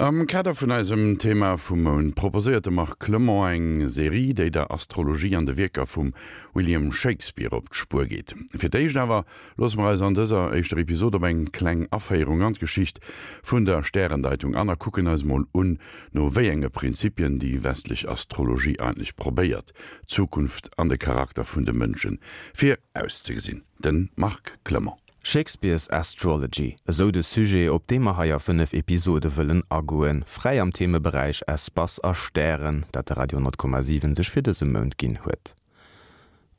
Am Kader vun eisem Thema vum Mount proposéiert de Marc Clement eng Serie, déi der Astrologie an de Wierker vum William Shakespeare op d'Spuer geet. Fir d'éischt awer loosse mer eis an dëser éischter Episod op eng kleng Aféierung an d'Geschicht vun der Stärendeitung an a kucken eis mol un, no wéi enge Prinzipien déi westlech Astrologie eigentlech probéiert, d'Zukunft an de Charakter vun de Mënsche virauszegesinn. De Marc Clement. Shakespeare's Astrology, esou de Sujet, op dee mer hei a 5 Episode wëllen agoen, fräi am Themeberäich Espace a Stären, dat de Radio 10,7 sech fir dëse Mount ginn huet.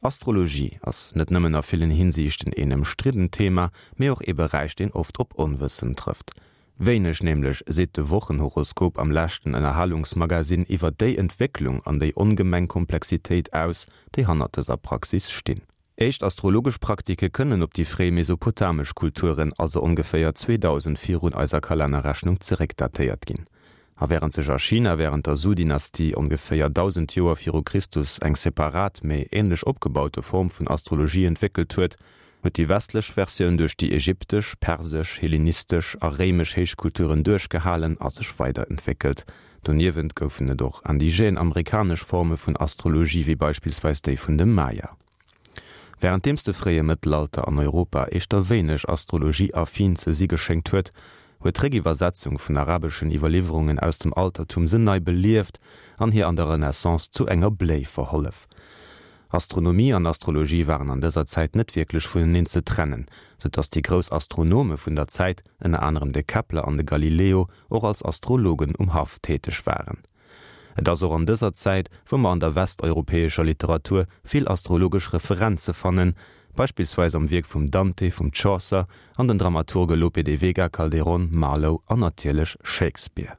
Astrologie ass net nëmmen a villen Hinsiichten een ëmstriddent Thema, mee och ee Beräich, deen oft op Onwëssen trëfft. Wéineg nämlech seet de Wochenhoroskop am leschten Ënnerhalungsmagasinn iwwer déi Entwécklung an déi ongemeng Komplexitéit aus, déi hannert dëser Praxis stinn. Éischt astrologesch Praktike kënnen op déi fréi mesopotamesch Kulturen, also ongeféier 2000 virun eiser Kalennerrechnung, zeréckdatéiert ginn. A wärend sech a China wärend der Su-Dynastie ongeféier 1000 Joer viru Christus eng separat, mee änlech opgebaute Form vun Astrologie entwéckelt huet, huet déi westlech Versioun duerch déi ägyptesch, persesch, hellenistesch a réimesch Héichkulturen duerchgehalen a sech weiderentwéckelt. Doniewent goufen et och indigène amerikanesch Forme vun Astrologie, wéi beispillsweis déi vun de Maya. Wärenddeems de fréie Mëttelalter an Europa éischter wéineg astrologieaffin ze si geschéngt huet, huet d'Réckiwwersetzung vun arabeschen Iwwerliwwerungen aus dem Altertum se nei belieft an hir an der Renaissance zu enger Bléi verhollef. Astronomie an Astrologie waren an dëser Zäit net wierklech vuneneen ze trennen, sou datt déi grouss Astronome vun der Zäit, ënner anerem de Kepler an de Galileo, och als Astrologen um Haff täteg waren. Et ass och an dëser Zäit, wou mer an der westeuropäescher Literatur vill astrologesch Referenze fannen, beispillsweis am Wierk vum Dante, vum Chaucer an den Dramaturge Lope de Vega, Calderón, Marlowe an natierlech Shakespeare.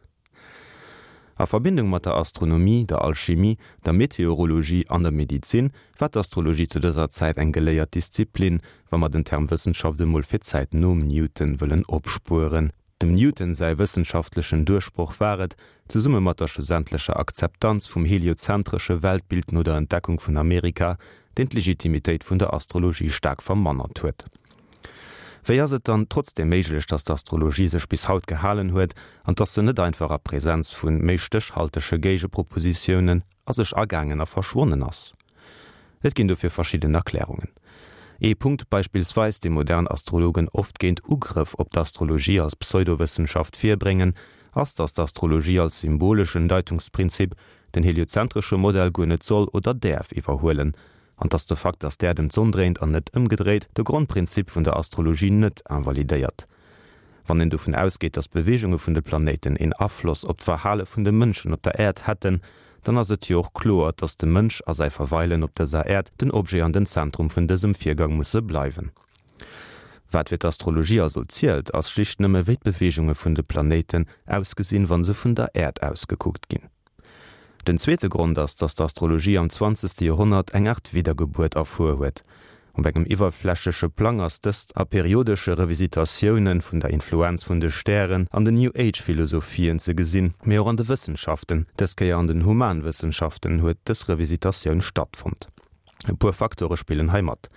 A Verbindung mat der Astronomie, der Alchimie, der Meteorologie an der Medizin war d'Astrologie zu dëser Zäit eng geléiert Disziplin, wa mer den Term Wëssenschaft emol fir d'Zäit nom Newton wëllen opspueren. Dem Newton säi wëssenschaftlechen Duerchbroch war et, zesumme mat der schlussendlecher Akzeptanz vum heliozentresche Weltbild no der Entdeckung vun Amerika, deen d'Legitimitéit vun der Astrologie staark vermannert huet. Wéi ass et dann trotzdeem méiglech, datt d'Astrologie sech bis haut gehalen huet an datt se net einfach a Präsenz vu méi stéchhaltege Géigepropositiounen a sech agaangen a verschwonnen ass? Et ginn dofir verschidden Erklärungen. Ee Punkt beispillsweis, dee modern Astrologen oft géint Ugrëff op d'Astrologie als Pseudowëssenschaft virbréngen, ass, datt d'Astrologie als symboleschen Deitungsprinzip den heliozentresche Modell guer net soll oder däerf iwwerhuelen, an datt de Fakt, datt d'Äerd ëm d'Sonn dréint an net ëmgedréit, de Grondprinzip vun der Astrologie net invalidéiert. Wann een dovun ausgeet, datt d'Beweegunge vun de Planéiten een Afloss op d'Verhale vun de Mënschen op der Äerd hätten, dann ass et jo och kloer, datt de Mënsch a säi Verweilen op dëser Äerd den Objet an den Zentrum vun dësem Virgang musse bleiwen. Wat fir d'Astrologie also zielt, ass schlicht nëmme wéi d'Beweegunge vun de Planéiten ausgesinn, wa se vun der Äerd aus gekuckt ginn. Den zweete Grond ass, datt d'Astrologie am zwanzegste Joerhonnert eng Aart Widdergebuert erfuer huet. Op engem iwwerflächleche Plang ass dëst a periodesche Revisitatioune vun der Influenz vun de Stären an den New Age-Philosophien ze gesinn, mee och an de Wëssenschaften, dës Kéier an den Humanwëssenschaften, huet dës Revisitatioun stattfonnt. E puer Faktore spillen hei mat.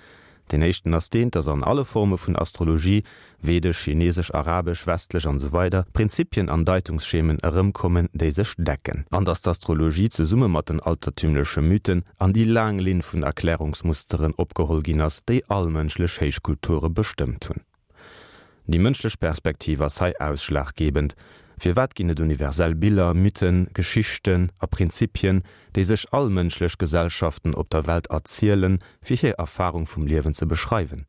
Deen éischten ass deen, dass an alle Forme vun Astrologie, vedesch, chinesesch, arabesch, westlech an esou weider, Prinzipien an Deitungsschemen erëmkommen, déi sech decken. An dass d'Astrologie zesumme mat den altertümleche Mythen an déi laang Linn vun Erklärungsmusteren opgeholl ginn ass, déi all mënschlech Héichkulture bestëmmt hunn. Déi mënschlech Perspektiv ass hei ausschlaggebend. Firwat ginn et universell Biller, Mythen, Geschichten a Prinzipien, déi sech all mënschlech Gesellschaften op der Welt erzielen, fir hir Erfarung vum Liewen ze beschreiwen?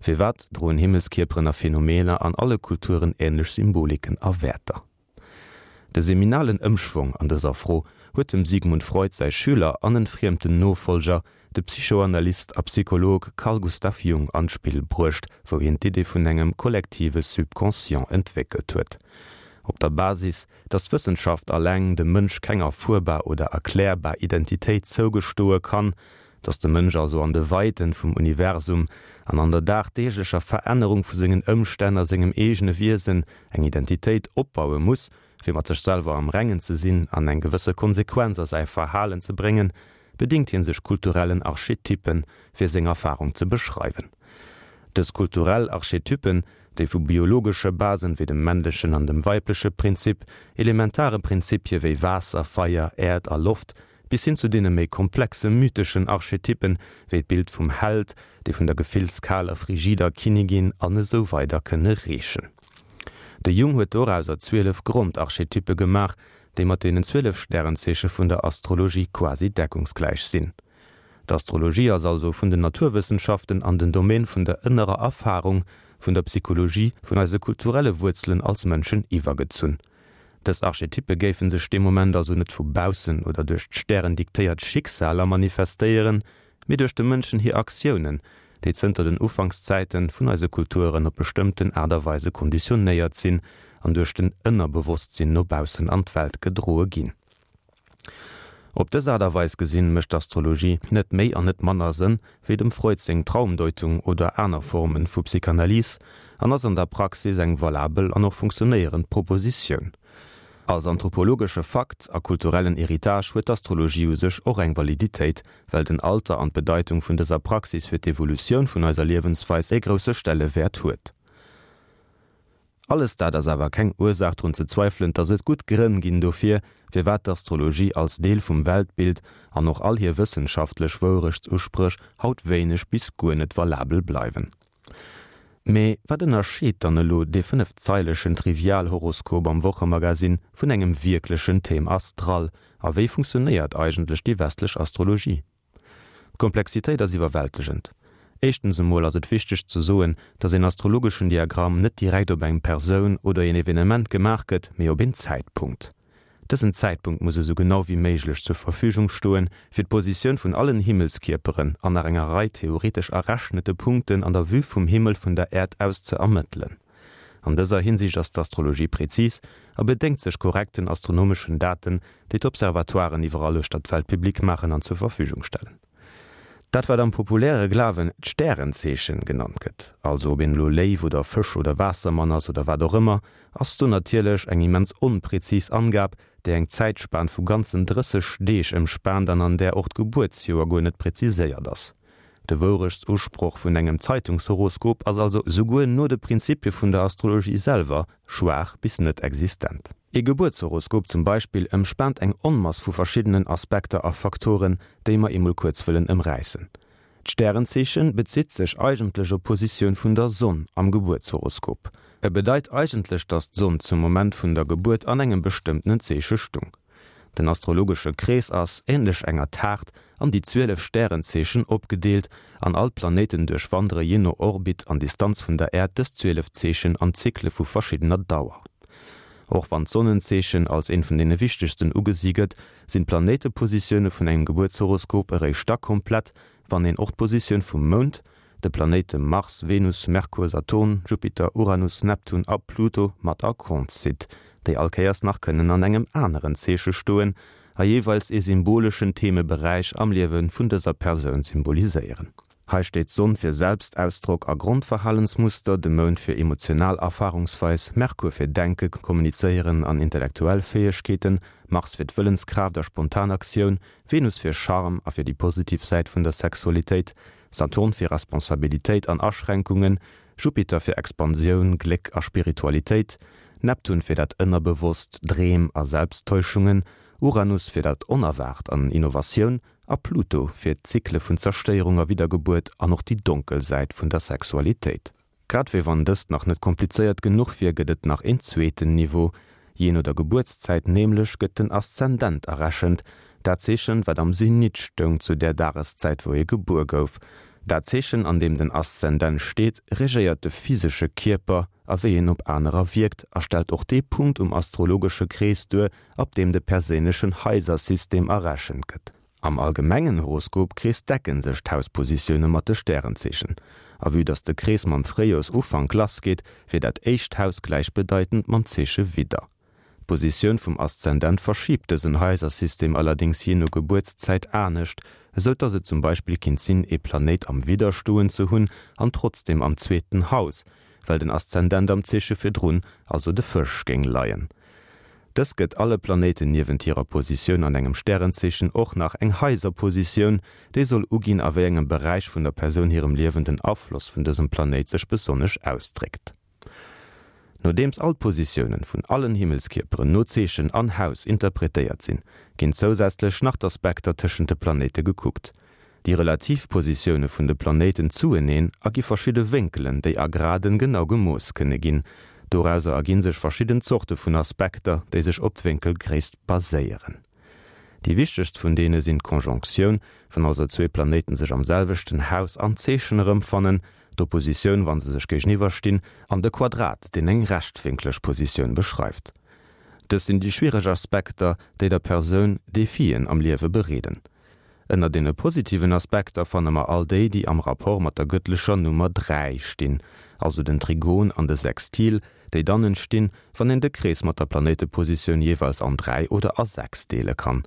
Firwat droen Himmelskierperen a Phänomener an alle Kulturen änlech Symboliken a Wäerter? De seminalen Ëmschwong an dëser Fro huet dem Sigmund Freud säi Schüler an entfriemten Nofollger, de Psychoanalyst a Psycholog Carl Gustav Jung an d'Spill bruecht, wou hien d'Idee vun engem kollektive Subconscient entwéckelt huet. Op der Basis, datt d'Wëssenschaft alleng dem Mënsch keng erfuerbar oder erklärbar Identitéit zougestoe kann, datt de Mënsch also an de Weiten vum Universum an an der dagdeeglecher Verännerung vu sengen Ëmstänn a sengem eegene Wiesen eng Identitéit opbaue muss, fir mat sech selwer am Rengen ze sinn an eng gewësse Konsequenz a säi Verhalen ze bréngen, bedingt hie sech kulturellen Archetypen, fir seng Erfarung ze beschreiwen. Dës kulturell Archetypen, déi vu biologesche Basen wéi dem männlechen an dem weibleche Prinzip, elementare Prinzipie wéi Waasser, Feier, Äerd a Loft, bis hin zu deene méi komplexe mytheschen Archetypen wéi d'Bild vum Held, déi vun der gefillskaler, frigider Kinnigin an esou weider kënne reechen. De Jung huet dorauser 12 Grondarchetyppe gemaach, déi mat deenen 12 Stärenzeeche vun der Astrologie quasi deckungsgläich sinn. D'Astrologie ass also vun den Naturwëssenschaften an den Domaine vun der ënnerer Erfarung, vun der Psychologie, vun eise kulturelle Wuerzelen als Mënschen iwwergezunn. Dës Archetyppe géife sech dee Moment also net vu baussen oder duerch d'Stären diktéiert Schicksaler manifestéieren, mee duerch de Mënschen hir Aktiounen, déi zënter den Ufankszäite vun eise Kulturen op bestëmmten Aart a Weise konditionéiert sinn an duerch den Ënnerbewosstsinn no baussen an d'Welt gedroe ginn. Op dës Aart a Weis gesinn, mécht d'Astrologie net méi an net manner Sënn wéi dem Freud seng Traumdeutung oder aner Formen vu Psychanalyse an ass an der Praxis eng valabel an och funktionéierend Propositioun. Als anthropologesche Fakt a kulturellen Héritage huet d'Astrologie u sech och eng Validitéit, well den Alter an d'Bedeitung vun dëser Praxis fir d'Evolutioun vun eiser Liewensweis e grousse Stellewäert huet. Alles dat ass awer keng Ursaach drun ze zweifelen, dass et gutt Grënn ginn dofir, firwat d'Astrologie als Deel vum Weltbild an och all hir wëssenschaftlech Wourechtsuspréch haut wéineg bis guer net valabel bleiwen. Mee wat ënnerscheet dann elo dee fënnefzeilegen Trivialhoroskop am Wochemagazin vun engem wierklechen Thème astral a wéi funktionéiert eigentlech déi westlech Astrologie? D'Komplexitéit ass iwwerwältegend. Éischtens emol ass et wichteg ze soen, dass een astrologeschen Diagramm net direkt op eng Persoun oder een Evenement gemaach gëtt, mee op een Zäitpunkt. Dësen Zäitpunkt muss esou genau wéi méiglech zur Verfügung stoen, fir d'Positioun vun allen Himmelskierperen an nach enger Rei theoretesch errechnete Punkten an der Vue vum Himmel vun der Äerd aus ze ermëttelen. An dëser Hinsicht ass d'Astrologie prezis a bedéngt sech korrekten astronomeschen Daten, déi d'Observatoiren iwwerall uechter d'Welt public maachen an zur Verfügung stellen. Dat wat am populäre Glawen d'Stärenzeechen genannt gëtt, also ob een elo Léiw oder Fësch oder Waassermann ass oder wat och ëmmer, ass do natierlech eng immens onprezis Angab, déi eng Zäitspan vu ganzen 30 Deeg ëmspaant an an där och d'Gebuertsjoer guer net preziséiert ass. De Wourechtsusproch vun engem Zeitungshoroskop ass also souguer no de Prinzipie vun der Astrologie selwer schwaach bis net existent. Ee Gebuertshoroskop zum Beispill ëmspaant eng Onmass vu verschiddenen Aspekter a Faktoren, déi mer emol kuerz wëllen ëmräissen. D'Stärenzeeche bezitt sech eigentlech op d'Positioun vun der Sonn am Gebuertshoroskop. E bedeit eigentlech, dass d'Sonn zum Moment vun der Gebuert an engem bestëmmtenen Zeeche stung. Den astrologesche Krees ass, änlech enger Taart, an déi 12 Stärenzeechen opgedeelt, an all d'Planéiten duerchwandere jee no Orbit an Distanz vun der Äerd dës 12 Zeechen an Zykle vu verschiddener Dauer. Och wann d'Sonnenzeechen als eent vun deene wichtegsten ugesi gëtt, sinn d'Planéitepositioune vun engem Gebuertshoroskop eréischt da komplett, wann een och d'Positioun vum Mound, de Planéite Mars, Venus, Merkur, Saturn, Jupiter, Uranus, Neptun a Pluto mat a Kont zitt, déi all Kéiers nach kënnen an engem aneren Zeeche stoen a jeeweils ee symboleschen Themeberäich am Liewe vun dëser Persoun symboliséieren. Hei steet d'Sonn fir Selbstausdrock a Grondverhalensmuster, de Mound fir emotional Erfarungsweis, Merkur fir Denken, Kommunizéieren an intellektuell Fäegkeeten, Mars fir d'Wëllenskraaft a spontan Aktioun, Venus fir Charme a fir déi positiv Säit vun der Sexualitéit, Saturn fir Responsabilitéit an Aschränkungen, Jupiter fir Expansioun, Gléck a Spiritualitéit, Neptun fir dat Ënnerbewosst, Dreem a Selbsttäuschungen, Uranus fir dat Onerwaart an Innovatioun a Pluto fir d'Zykle vun Zerstéierung a Widdergebuert an och déi donkel Säit vun der Sexualitéit. Grad wéi wann dëst nach net komplizéiert genuch wier, gëtt et nach een zweeten Niveau. Jee no der Gebuertszäit nämlech gëtt den Aszendent errechent, dat Zeechen, wat am Zenit stoung zu där Dageszäit wou ee gebuer gouf. Dat Zeechen, an deem den Aszendent steet, regéiert de physesche Kierper a wéi en op anerer wierkt a stellt och dee Punkt um astrologesche Krees duer, ab deem de perséinlechen Haisersystem errechent gëtt. Am allgemengen Horoskopkrees decken sech d'Hauspositioune mat de Stärenzeechen. A vue dass de Krees mam Fréijoersufank lassgeet, wier dat éischt Haus gläichbedeitend mam Zeeche Widder. D'Positioun vum Aszendent verschiibt dësen Haisersystem allerdéngs jee no Gebuertszäit anescht, esou dass et zum Beispill kinnt sinn, ee Planéit am Widder stoen ze hunn an trotzdeem am zweeten Haus, well den Aszendent am Zeeche virdrun, also de Fësch, géing leien. Dës gëtt alle Planéiten niewent hirer Positioun an engem Stärenzeechen och nach eng Haiserpositioun, déi soll uginn, a wéi engem Beräich vun der Persoun hirem Liewen den Afloss vun dësem Planéit sech besonnesch ausdréckt. Nodeems all d'Positiounen vun allen Himmelskierperen no Zeechen an Haus interpretéiert sinn, ginn zousätzlech nach d'Aspekter tëschent de Planéite gekuckt. Déi relativ Positioune vun de Planéiten zueneen ergi verschidde Wénkelen, déi a Graden genau gemooss kënne ginn. Dorauser erginn sech verschidden Zorte vun Aspekter, déi sech op d'Wénkelgréisst baséieren. Déi wichtegst vun deene sinn d'Konjonktioun, wann also zwee Planéiten sech am selwechten Haus an Zeechen erëmfannen, d'Oppositioun, wa se sech géigeniwwer stinn, an de Quadrat, deen eng rechtwénkleg Positioun beschreift. Dës sinn déi schwiereg Aspekter, déi der Persoun Defien am Liewe bereeden. Ënner deene positiven Aspekter fanne mer all déi, déi am Rapport mat der gëttlecher Nummer 3 stinn, also den Trigon an de Sextil, déi dann entstinn, wann een de Krees mat der Planéitepositioun jeeweils an 3 oder a 6 deele kann.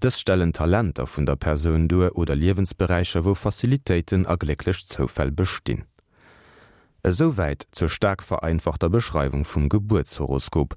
Dës stellen Talenter vun der Persoun duer oder Liewensberäicher, wou Facilitéiten a glécklech Zoufäll bestinn. Esouwäit zur staark vereinfachter Beschreiwung vum Gebuertshoroskop.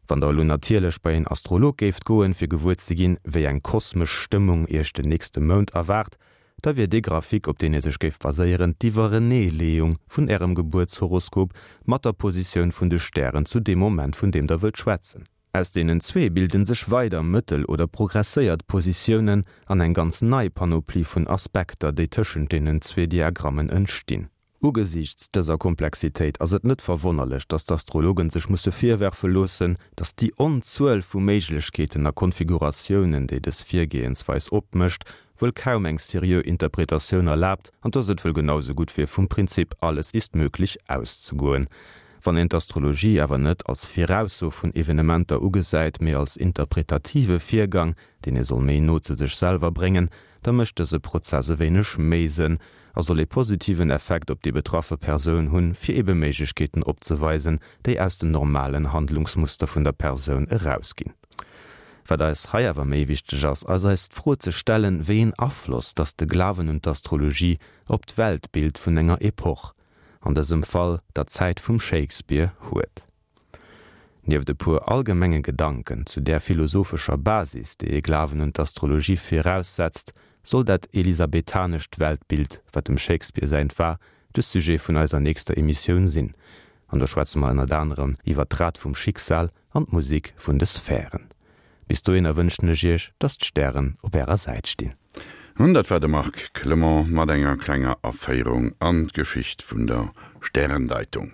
Wann der elo natierlech bei een Astrolog géift goen, fir gewuer ze ginn, wéi eng kosmesch Stëmmung iech den nächste Mount erwaart, da wier dee Graphique, op deen dir sech géift baséieren, d'Iwwereneeleeung vun ärem Gebuertshoroskop mat der Positioun vun de Stären zu deem Moment, vun deem der wëllt schwätzen. Aus deenen zwee bilden sech weider mëttel oder progresséiert Positiounen an eng ganz nei Panoplie vun Aspekter, déi tëschent deenen zwee Diagrammen entstinn. Ugesiichts dëser Komplexitéit ass et net verwonnerlech, datt d'Astrologen sech musse virwerfe loossen, datt déi Onzuel vu Méiglechkeeten a Konfiguratiounen, déi dës Virgehensweis opmécht, wuel kaum eng seriö Interpretatioun erlaabt an datt et wuel genau sou gutt wier, vum Prinzip alles ist möglich auszegoen. Wann een d'Astrologie awer net als Virausso vun Evenementer ugesäit, mee als interpretative Virgang, deen ee soll méi no zu sech selwer bréngen, da mécht dëse Prozess e wéineg méi Sënn a soll ee positiven Effekt op déi betraffe Persoun hunn, fir ebe Méiglechkeeten opzeweisen, déi aus den normalen Handlungsmuster vun der Persoun erausginn. Wat eis hei awer méi wichteg ass, ass eis d'Fro ze stellen, wéi een Afloss dass de Glawen un d'Astrologie op d'Weltbild vun enger Epoch, an dësem Fall der Zäit vum Shakespeare, huet. Nieft e puer allgemenge Gedanken zu där philosophescher Basis, déi ee Glawen un d'Astrologie viraussetzt, soll dat elisabethanescht Weltbild, wat dem Shakespeare säint war, de Sujet vun eiser nächster Emissioun sinn. An do schwätze mer ënnert anerem iwwer d'Rad vum Schicksal an d'Musek vun de Sphären. Bis dohinner wënschen ech iech, dass d'Stären op ärer Säit stinn. An dat war de Marc Clement mat enger klenger Aféierung an d'Geschicht vun der Stärendeitung.